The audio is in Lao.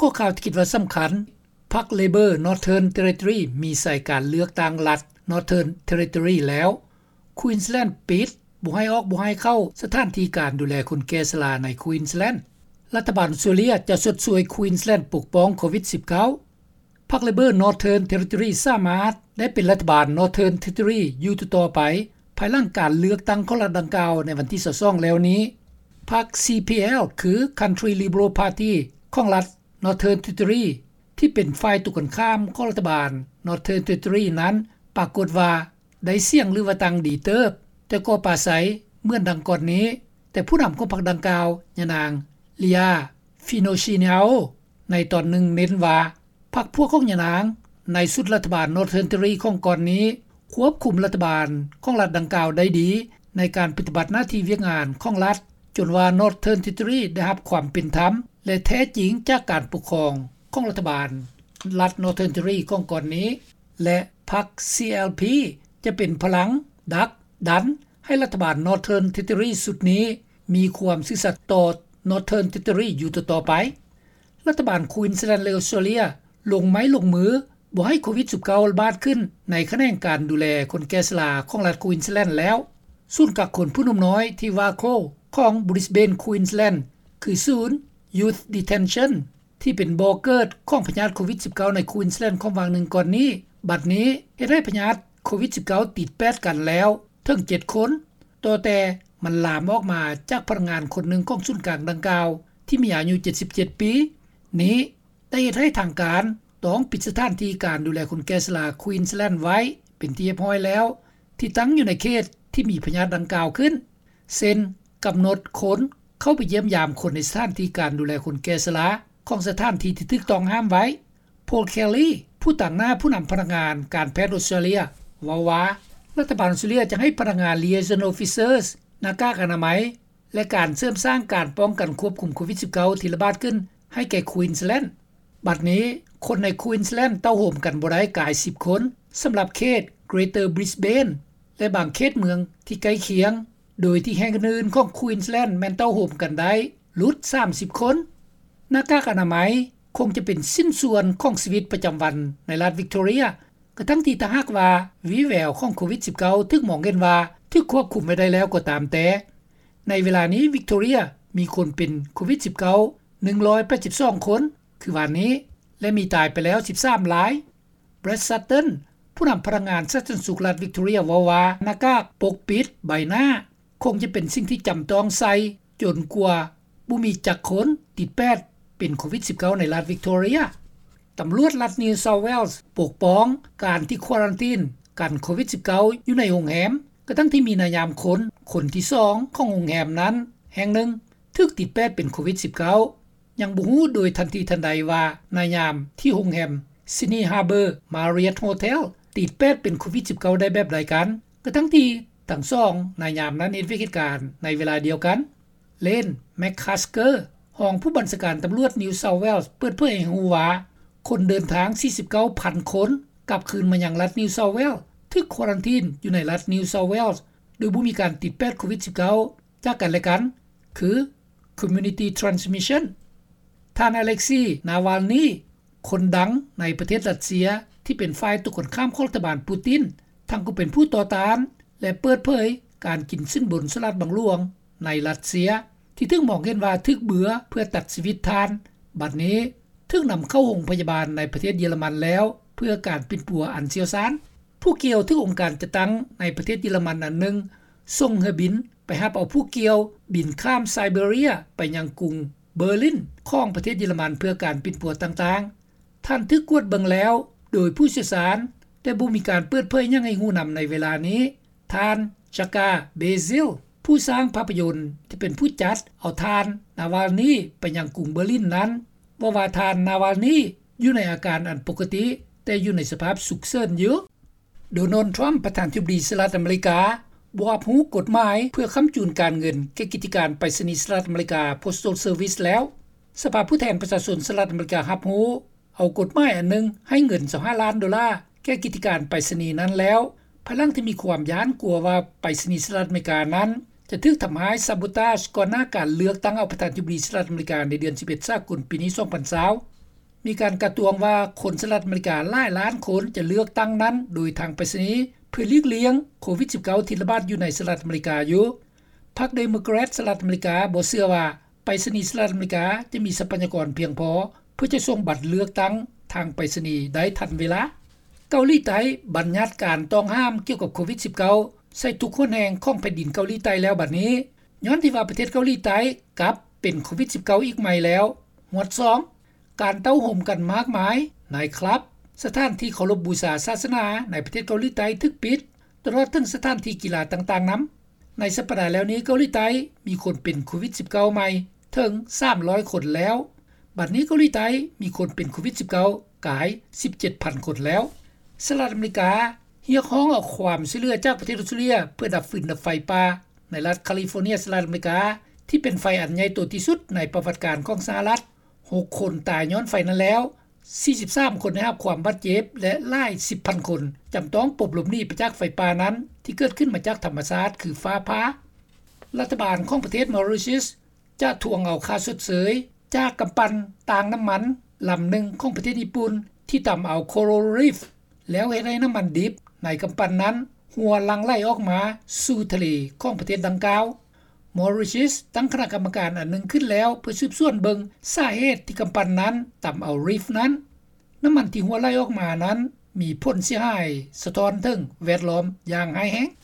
ກໍຂ່າວທີ່ຄິດວ່າສຳຄັນ, ພັກ Labor Northern Territory ມີໃສການເລືອກຕັ້ງລັດ Northern Territory ແລ້ວ, Queensland ປິດ, ບໍ່ໃຫ້ອອກບໍ່ໃຫ້ເຂົ້າສະຖານທີ່ການດູແລຄົນແກ່ຊະລາໃນ Queensland. ລັດຖະບານອອສເຕຣເລັຽຈະຊົດຊ່ວຍ Queensland ປົກປ້ອງໂຄວິດ-19. ພັກ Labor Northern Territory ສາມາດໄດ້ເປັນລັດຖະບານ Northern Territory ຢູ່ຕໍ່ໆໄປ, ພາຍຫຼັງການເລືອກຕັ້ງຂອງລັດດັ່ງກ່າວໃນວັນທີຊາວສອງແລ້ວນີ້. ພັກ CPL ຄື Country Liberal Party ຂອງລັດ Northern Territory ທີ່ເປັນຝ່າຍຕົງກັນຂ້າມຂອງລັດຖະບານ Northern Territory ນັ້ນ ປາກົດວ່າໄດ້ສຽງ ຫຼືວ່າຕັ້ງດີເຕີບ, ແຕ່ກໍປາໄສເໝືອນດັ່ງກ່ອນນີ້, ແຕ່ຜູ້ນຳຂອງພັກດັ່ງກ່າວ, ຍານາງ Leah Finocchiaro ໃນຕອນໜຶ່ງເນັ້ນວ່າ ພັກພວກຂອງຍານາງໃນຊຸດລັດຖະບານ Northern Territory ຂອງກ່ອນນີ້ ຄວບຄຸມລັດຖະບານຂອງລັດດັ່ງກ່າວໄດ້ດີ ໃນການປະຕິບັດໜ້າທີ່ວຽກງານຂອງລັດ, ຈົນວ່າ Northern Territory ໄດ້ຮັບຄວາມເປັນທຳ ແລະ ແທ້ຈິງຈາກການປົກຄອງຂອງລັດຖະບານລັດ Northern Territory ຂອງກ່ອນນີ້ ແລະ ພັກ CLP ຈະເປັນພະລັງດັກດັນໃຫ້ລັດຖະບານ Northern Territory ຊຸດນີ້ມີຄວາມຊື່ສັດຕໍ່ Northern Territory ຢູ່ຕໍ່ໆໄປ. ລັດຖະບານ Queensland ແລະ ອອສເຕຣເລັຽລົງໄມ້ລົງມືບໍ່ໃຫ້ໂຄວິດ-19 ລະບາດຂຶ້ນໃນຂະແໜງການດູແລຄົນແກ່ຊະລາຂອງລັດ Queensland ແລ້ວ. ສູນກັກຄົນຜູ້ໜຸ່ມນ້ອຍທີ່ Warkworth ຂອງ Brisbane Queensland ຄືສູນ Youth Detention ທີ່ເປັນບໍ່ເກີດຂອງພະຍາດໂຄວິດ-19 ໃນ Queensland ຂອງຫວ່າງໜຶ່ງກ່ອນນີ້, ບັດນີ້ເຮັດໃຫ້ພະຍາດໂຄວິດ-19 ຕິດແປດກັນແລ້ວເຖິງເຈັດຄົນ, ຕໍ່ແຕ່ມັນລາມອອກມາຈາກພະນັກງານຄົນໜຶ່ງຂອງສູນກາງດັ່ງກ່າວ ທີ່ມີອາຍຸເຈັດສິບເຈັດປີນີ້ ໄດ້ເຮັດໃຫ້ທາງການຕ້ອງປິດສະຖານທີ່ການດູແລຄົນແກ່ຊະລາ Queensland ໄວ້ເປັນທີ່ຮຽບຮ້ອຍແລ້ວ ທີ່ຕັ້ງຢູ່ໃນເຂດທີ່ມີພະຍາດດັ່ງກ່າວຂຶ້ນ, ເຊັ່ນ ກຳນົດຄົນເຂົ້າໄປຢ້ຽມຢາມຄົນໃນສະຖານທີ່ການດູແລຄົນແກ່ຊະລາຂອງສະຖານທີ່ທີ່ຖືກຕ້ອງຫ້າມໄວ້. Paul Kelly ຜູ້ຕາງໜ້າຜູ້ນຳພະນັກງານການແພດອອສເຕຣເລັຽ ເວົ້າວ່າ ລັດຖະບານອອສເຕຣເລັຽຈະໃຫ້ພະນັກງານ Liaison Officers ໜ້າກາກອະນາໄມ ແລະ ການເສີມສ້າງການປ້ອງກັນຄວບຄຸມໂຄວິດ-19 ທີ່ລະບາດຂຶ້ນໃຫ້ແກ່ Queensland. ບັດນີ້ຄົນໃນ Queensland ເຕົ້າໂຮມກັນບໍ່ໄດ້ກາຍສິບຄົນ ສຳລັບເຂດ Greater Brisbane ແລະ ບາງເຂດເມືອງທີ່ໃກ້ຄຽງ, ໂດຍທີ່ແຫ່ງອື່ນໆຂອງ Queensland ແມ່ນເຕົ້າໂຮມກັນໄດ້ຫຼຸດສາມສິບຄົນ. ໜ້າກາກອະນາໄມຄົງຈະເປັນຊິ້ນສ່ວນຂອງຊີວິດປະຈຳວັນໃນລັດ Victoria ກະທັ່ງທີ່ຖ້າຫາກວ່າວີແວວຂອງໂຄວິດ-19 ຖືກມອງເຫັນວ່າຖືກຄວບຄຸມໄວ້ໄດ້ແລ້ວກໍຕາມແຕ່. ໃນເວລານີ້ Victoria ມີຄົນເປັນໂຄວິດ-19 ໜຶ່ງຮ້ອຍແປດສິບສອງຄົນ ຄືວານນີ້ ແລະ ມີຕາຍໄປແລ້ວສິບສາມລາຍ. Brad Sutton ຜູ້ນຳພະນັກງານສາທາລະນະສຸກລັດ Victoria ເວົ້າວ່າ ໜ້າກາກປົກປິດໃບໜ້າຄົງຈະເປັນສິ່ງທີ່ຈຳຕ້ອງໃສ່ ຈົນກວ່າບໍ່ມີຈັກຄົນຕິດແປດເປັນໂຄວິດ-19 ໃນລັດ Victoria. ຕຳຫຼວດລັດ New South Wales ປົກປ້ອງການທີ່ຄວາຣັນຕີນກັນໂຄວິດ-19 ຢູ່ໃນໂຮງແຮມ ກະທັ່ງທີ່ມີນາຍາມຄົນ ຄົນທີສອງຂອງໂຮງແຮມນັ້ນແຫ່ງໜຶ່ງຖືກຕິດແປດເປັນໂຄວິດ-19. ຍັງບໍ່ຮູ້ໂດຍທັນທີທັນໃດວ່ານາຍາມທີ່ໂຮງແຮມ Sydney Harbour Marriott Hotel ຕິດແປດເປັນໂຄວິດ-19 ໄດ້ແບບໃດກັນ, ກະທັ່ງທີ່ທັງສອງນາຍາມນັ້ນເຮັດວຽກເຮັດການໃນເວລາດຽວກັນ. Lane McCusker ຮອງຜູ້ບັນຊາການຕຳຫຼວດ New South Wales ເປີດເຜີຍໃຫ້ຮູ້ວ່າ ຄົນເດີນທາງສີ່ສິບເກົ້າພັນຄົນກັບຄືນມາຍັງລັດ New South Wales ຖືກຄວາຣັນຕີນຢູ່ໃນລັດ New South Wales ໂດຍບໍ່ມີການຕິດແປດໂຄວິດ-19 ຈາກກັນແລະກັນ ຄື community transmission. ທ່ານ Alexei Navalny ຄົນດັງໃນປະເທດຣັດເຊຍ ທີ່ເປັນຝ່າຍຕົງກັນຂ້າມຂອງລັດຖະບານປູຕິນ ທັງກໍເປັນຜູ້ຕໍ່ຕ້ານ ແລະ ເປີດເຜີຍການກິນສິນບົນສະຫຼາດບັງຫຼວງໃນຣັດເຊຍ ທີ່ຖືກມອງເຫັນວ່າຖືກເບືອເພື່ອຕັດຊີວິດທ່ານ ບັດນີ້ຖືກນຳເຂົ້າໂຮງພະຍາບານໃນປະເທດເຢຍລະມັນແລ້ວ ເພື່ອການປິ່ນປົວອັນຊ່ຽວຊານ. ຜູ້ກ່ຽວຖືກອົງການຈັດຕັ້ງໃນປະເທດເຢຍລະມັນອັນໜຶ່ງສົ່ງເຮືອບິນໄປຮັບເອົາຜູ້ກ່ຽວບິນຂ້າມໄຊເບເຣຍໄປຍັງກຸງເບີລິນຂອງປະເທດເຢຍລະມັນເພື່ອການປິ່ນປົວຕ່າງໆ. ທ່ານຖືກກວດເບິ່ງແລ້ວໂດຍຜູ້ຊ່ຽວຊານ, ແຕ່ບໍ່ມີການເປີດເຜີຍຫຍັງໃຫ້ຮູ້ນຳໃນເວລານີ້. ທ່ານ Jakar Beziel ຜູ້ສ້າງພາບພະຍົນທີ່ເປັນຜູ້ຈັດເອົາທ່ານ Navalny ໄປຍັງກຸງເບີລິນນັ້ນ ເວົ້າວ່າທ່ານ Navalny ຢູ່ໃນອາການອັນປົກກະຕິ, ແຕ່ຢູ່ໃນສະພາບສຸກເສີນຢູ່. Donald Trump ປະທານທິບໍດີສະຫະລັດອາເມລິກາ ບໍ່ຮັບຮູ້ກົດໝາຍເພື່ອຄ້ຳຈູນການເງິນແກ່ກິດຈະການໄປສະນີສະຫະລັດອາເມລິກາ Postal Service ແລ້ວ. ສະພາຜູ້ແທນປະຊາຊົນສະຫະລັດອາເມລິກາຮັບຮູ້ເອົາກົດໝາຍອັນໜຶ່ງໃຫ້ເງິນຊາວຫ້າລ້ານໂດລາແກ່ກິດຈະການໄປສະນີນັ້ນແລ້ວ, ພາຍຫຼັງທີ່ມີຄວາມຢ້ານກົວວ່າໄປສະນີສະຫະລັດອາເມລິການັ້ນຈະຖືກທຳຮ້າຍ sabotage ກ່ອນໜ້າການເລືອກຕັ້ງເອົາປະທານທິບໍດີສະຫະລັດອາເມລິກາໃນເດືອນສິບເອັດສາກົນປີນີ້ ສອງພັນຊາວ. ມີການກາດຕວງວ່າຄົນສະຫະລັດອາເມລິກາຫຼາຍລ້ານຄົນຈະເລືອກຕັ້ງນັ້ນໂດຍທາງໄປສະນີ ເພື່ອຫຼີກລ່ຽງໂຄວິດ-19 ທີ່ລະບາດຢູ່ໃນສະຫະລັດອາເມລິກາຢູ່. ພັກເດໂມແຄຣດສະຫະລັດອາເມລິກາບໍ່ເຊື່ອວ່າໄປສະນີສະຫະລັດອາເມລິກາຈະມີຊັບພະຍາກອນພຽງພໍເພື່ອຈະສົ່ງບັດເລືອກຕັ້ງທາງໄປສະນີໄດ້ທັນເວລາ. ເກົາຫຼີໃຕ້ບັນຍັດການຕ້ອງຫ້າມກ່ຽວກັບໂຄວິດ-19 ໃສ່ທຸກຫົນແຫ່ງຂອງແຜ່ນດິນເກົາຫຼີໃຕ້ແລ້ວບັດນີ້ ຍ້ອນທີ່ວ່າປະເທດເກົາຫຼີໃຕ້ກັບເປັນໂຄວິດ-19 ອີກໃໝ່ແລ້ວ. ຫມວດສອງ ການເຕົ້າໂຮມກັນມາກມາຍ, ໄນຄລັບ, ສະຖານທີ່ເຄົາລົບບູຊາສາສະໜາໃນປະເທດເກົາຫຼີໃຕ້ຖືກປິດ ຕະຫຼອດເຖິງສະຖານທີ່ກິລາຕ່າງໆນຳ. ໃນສັບປະດາແລ້ວນີ້ເກົາຫຼີໃຕ້ມີຄົນເປັນໂຄວິດ-19 ໃໝ່ເຖິງສາມຮ້ອຍຄົນແລ້ວ. ບັດນີ້ເກົາຫຼີໃຕ້ມີຄົນເປັນໂຄວິດ-19 ກາຍສິບເຈັດພັນຄົນແລ້ວ. ສະຫະລັດອາເມລິກາຮຽກຮ້ອງເອົາຄວາມຊ່ວຍເຫຼືອຈາກປະເທດອອສເຕຣເລັຽ ເພື່ອດັບຟືນດັບໄຟປ່າໃນລັດຄາລິຟໍເນັຍສະຫະລັດອາເມລິກາ ທີ່ເປັນໄຟອັນໃຫຍ່ໂຕທີ່ສຸດໃນປະຫວັດການຂອງສະຫະລັດ. ຫົກຄົນຕາຍຍ້ອນໄຟນັ້ນແລ້ວ, ສີ່ສິບສາມຄົນໄດ້ຮັບຄວາມບາດເຈັບ ແລະ ຫຼາຍສິບພັນຄົນຈຳຕ້ອງປົບຫຼົບໜີໄປຈາກໄຟປ່ານັ້ນ ທີ່ເກີດຂຶ້ນມາຈາກທຳມະຊາດຄືຟ້າຜ່າ. ລັດຖະບານຂອງປະເທດມໍຣິເຊຍສຈະທວງເອົາຄ່າຊົດເຊີຍຈາກກຳປັ່ນຕາງນ້ຳມັນລຳໜຶ່ງຂອງປະເທດຍີ່ປຸ່ນ ທີ່ຕຳເອົາໂຄຣາລຣີຟ ແລ້ວເຮັດໃຫ້ນ້ຳມັນດິບໃນກຳປັ່ນນັ້ນຮົ່ວຫຼັ່ງໄຫຼອອກມາສູ່ທະເລຂອງປະເທດດັ່ງກ່າວ. ມໍຣິເຊຍສຕັ້ງຄະນະກຳມະການອັນໜຶ່ງຂຶ້ນແລ້ວ ເພື່ອສືບສວນເບິ່ງສາເຫດທີ່ກຳປັ່ນນັ້ນຕຳເອົາຣີຟນັ້ນ. ນ້ຳມັນທີ່ຮົ່ວໄຫຼອອກມານັ້ນມີຜົນເສຍຫາຍສະທ້ອນເຖິງແວດລ້ອມຢ່າງຮ້າຍແຮງ.